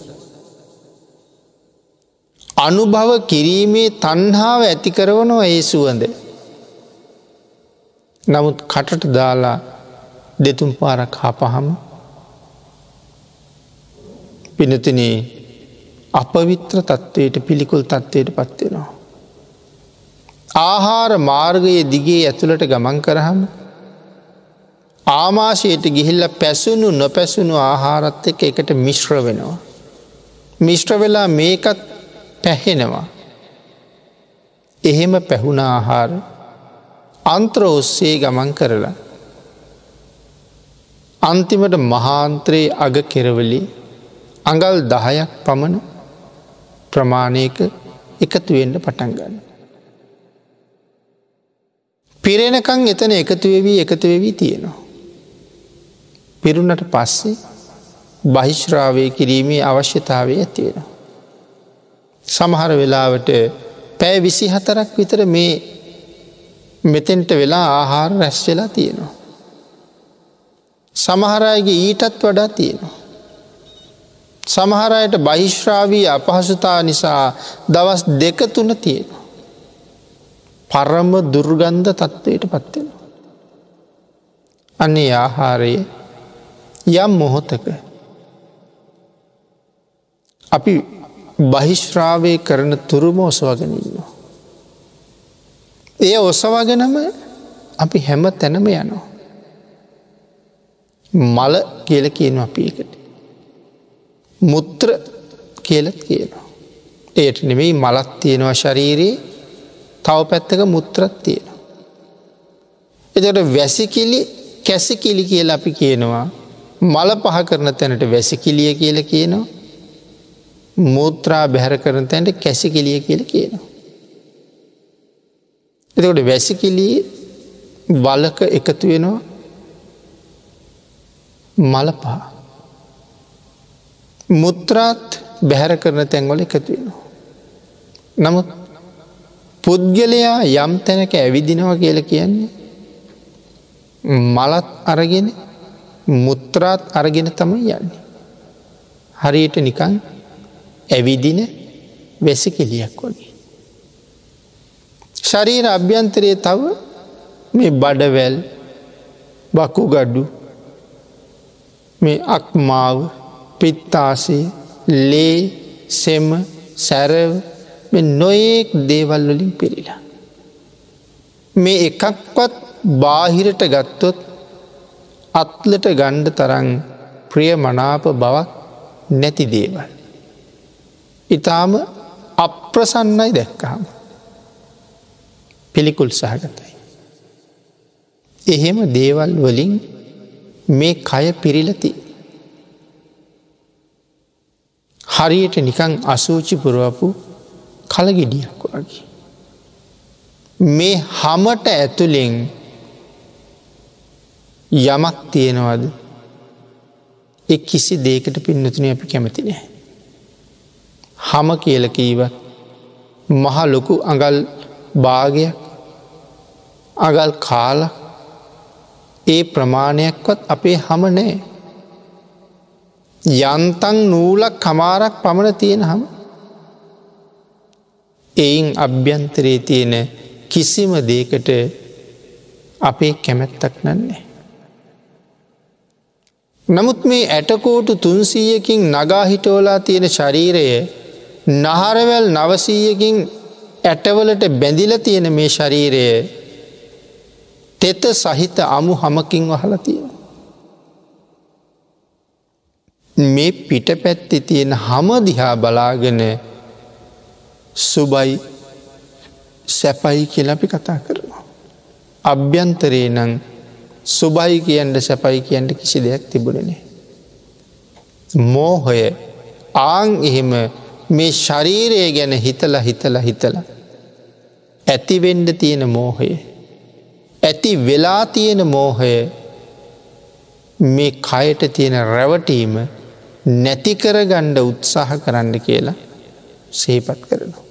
අනුභව කිරීමේ තණ්හාව ඇති කරවනවා ඒ සුවඳ. නමුත් කටට දාලා දෙතුන් පාරක් හපහම පිනතුනේ අපවිත්‍ර තත්ත්වයට පිළිකුල් තත්ත්වයට පත් වෙනවා. ආහාර මාර්ගයේ දිගේ ඇතුළට ගමන් කරාම ආමාශයට ගිහිල්ලා පැසුණු නොපැසුණු ආහාරත් එක්ක එකට මිශ්‍ර වෙනවා. මිශ්‍ර වෙලා මේකත් පැහෙනවා. එහෙම පැහුණ ආහාර අන්ත්‍ර ඔස්සේ ගමන් කරලා අන්තිමට මහාන්ත්‍රයේ අග කෙරවලේ අඟල් 10ක් පමණ ප්‍රමාණයක එකතු වෙන්න පටන් ගන්නවා. පිරෙනකන් එතන එකතු වෙවි එකතු වෙවි තියෙනවා. පිරුණට පස්සේ බහිශ්‍රාවය කිරීමේ අවශ්‍යතාවය ඇති වෙනවා. සමහර වෙලාවට පැය 24ක් විතර මේ මෙතෙන්ට වෙලා ආහාර රැස් වෙලා තියෙනවා. සමහර අයගේ ඊටත් වඩා තියෙනවා. සමහර අයට බහිශ්‍රාවී අපහසුතා නිසා දවස් 2-3 තියෙනවා. පරම දුර්ගන්ධ තත්ත්වයට පත් වෙනවා. අනේ ආහාරය යම් මොහොතක අපි බහිශ්‍රාවය කරන තුරුම ඔසවගෙන ඉන්නවා. ඒ ඔසවගෙනම අපි හැම තැනම යනවා. මල කියලා කියනවා අපි ඒකට. මුත්‍ර කියලා කියනවා. ඒට නෙමෙයි මලක් තියෙනවා ශරීරයේ, තව පැත්තක මුත්‍රත් තියෙනවා. එතකොට වැසිකිලි කැසිකිලි කියලා අපි කියනවා. මල පහ කරන තැනට වැසිකිලිය කියලා කියනවා. මූත්‍රා බැහැර කරන තැනට කැසිකිලිය කියලා කියනවා. එතකොට වැසිකිලි වලක එකතු වෙනවා මල පහ. මුත්‍රාත් බැහැර කරන තැන්වල එකතු වෙනවා. නමුත් පුද්ගලයා යම් තැනක ඇවිදිනවා කියලා කියන්නේ මලත් අරගෙන මුත්‍රාත් අරගෙන තමයි යන්නේ. හරියට නිකන් ඇවිදින වැසිකිළියක් වගේ. ශරීර අභ්‍යන්තරයේ තව මේ බඩවැල්, වකුගඩු, මේ අක්මාව, පිත්තාශය, ලේ, සෙම, සැරව මේ නොයෙක් දේවල් වලින් පිරීලා. මේ එකක්වත් බාහිරට ගත්තොත් අත්ලට ගණ්ඩ තරම් ප්‍රිය මනාප බවක් නැති දේවල්. ඊටාම අප්‍රසන්නයි දැක්කහම. පිළිකුල් සහගතයි. එහෙම දේවල් වලින් මේ කය පිරීලා තියෙන්නේ. හරියට නිකන් අසුචි පුරවපු කලගෙඩියක් වගේ. මේ හැමට ඇතුලෙන් යමක් තියෙනවද? ඒ කිසි දෙයකට පින්නතුනේ අපි කැමති නෑ. හැම කියලා කීවත් මහ ලොකු අඟල් භාගයක් අඟල් කාලක් ඒ ප්‍රමාණයක්වත් අපේ හැම නෑ. යන්තම් නූලක් කමාරක් පමණ තියෙන හැම. එයින් අභ්‍යන්තරයේ තියෙන කිසිම දෙයකට අපේ කැමැත්තක් නෑ. නමුත් මේ ඇටකෝටු 300කින් නගා හිටවලා තියෙන ශරීරය නහරවැල් 900කින් ඇටවලට බැඳිලා තියෙන මේ ශරීරය තෙත සහිත අමු හමකින් වහලා තියෙනවා. මේ පිටපැත්තේ තියෙන හම දිහා බලාගෙන සුබයි සැපයි කියලා අපි කතා කරනවා. අභ්‍යන්තරේ නම් සුබයි කියන්න සැපයි කියන්න කිසි දෙයක් තිබුණේ නෑ. මෝහය ආන් එහෙම මේ ශරීරය ගැන හිතලා හිතලා හිතලා ඇති වෙන්න තියෙන මෝහය, ඇති වෙලා තියෙන මෝහය මේ කයට තියෙන රැවටීම නැති කරගන්න උත්සාහ කරන්න කියලා සිහිපත් කරනවා.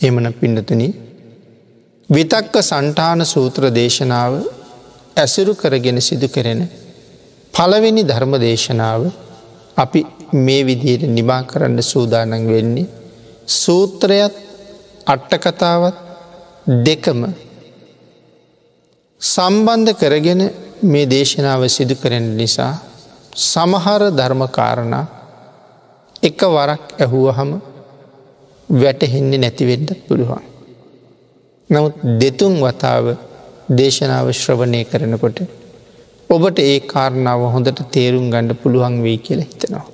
එහෙමනම් පින්නතුනි, විතක්ක සන්ඨාන සූත්‍ර දේශනාව ඇසුරු කරගෙන සිදු කෙරෙන පළවෙනි ධර්ම දේශනාව අපි මේ විදිහට නිමා කරන්න සූදානම් වෙන්නේ සූත්‍රයත් අට කතාවත් දෙකම සම්බන්ධ කරගෙන මේ දේශනාව සිදු කරන නිසා සමහර ධර්ම කාරණා එක වරක් ඇහුවහම වැටහෙන්නේ නැති වෙන්නත් පුළුවන්. නමුත් දෙතුන් වතාව දේශනාව ශ්‍රවණය කරනකොට ඔබට ඒ කාරණාව හොඳට තේරුම් ගන්න පුළුවන් වෙයි කියලා හිතනවා.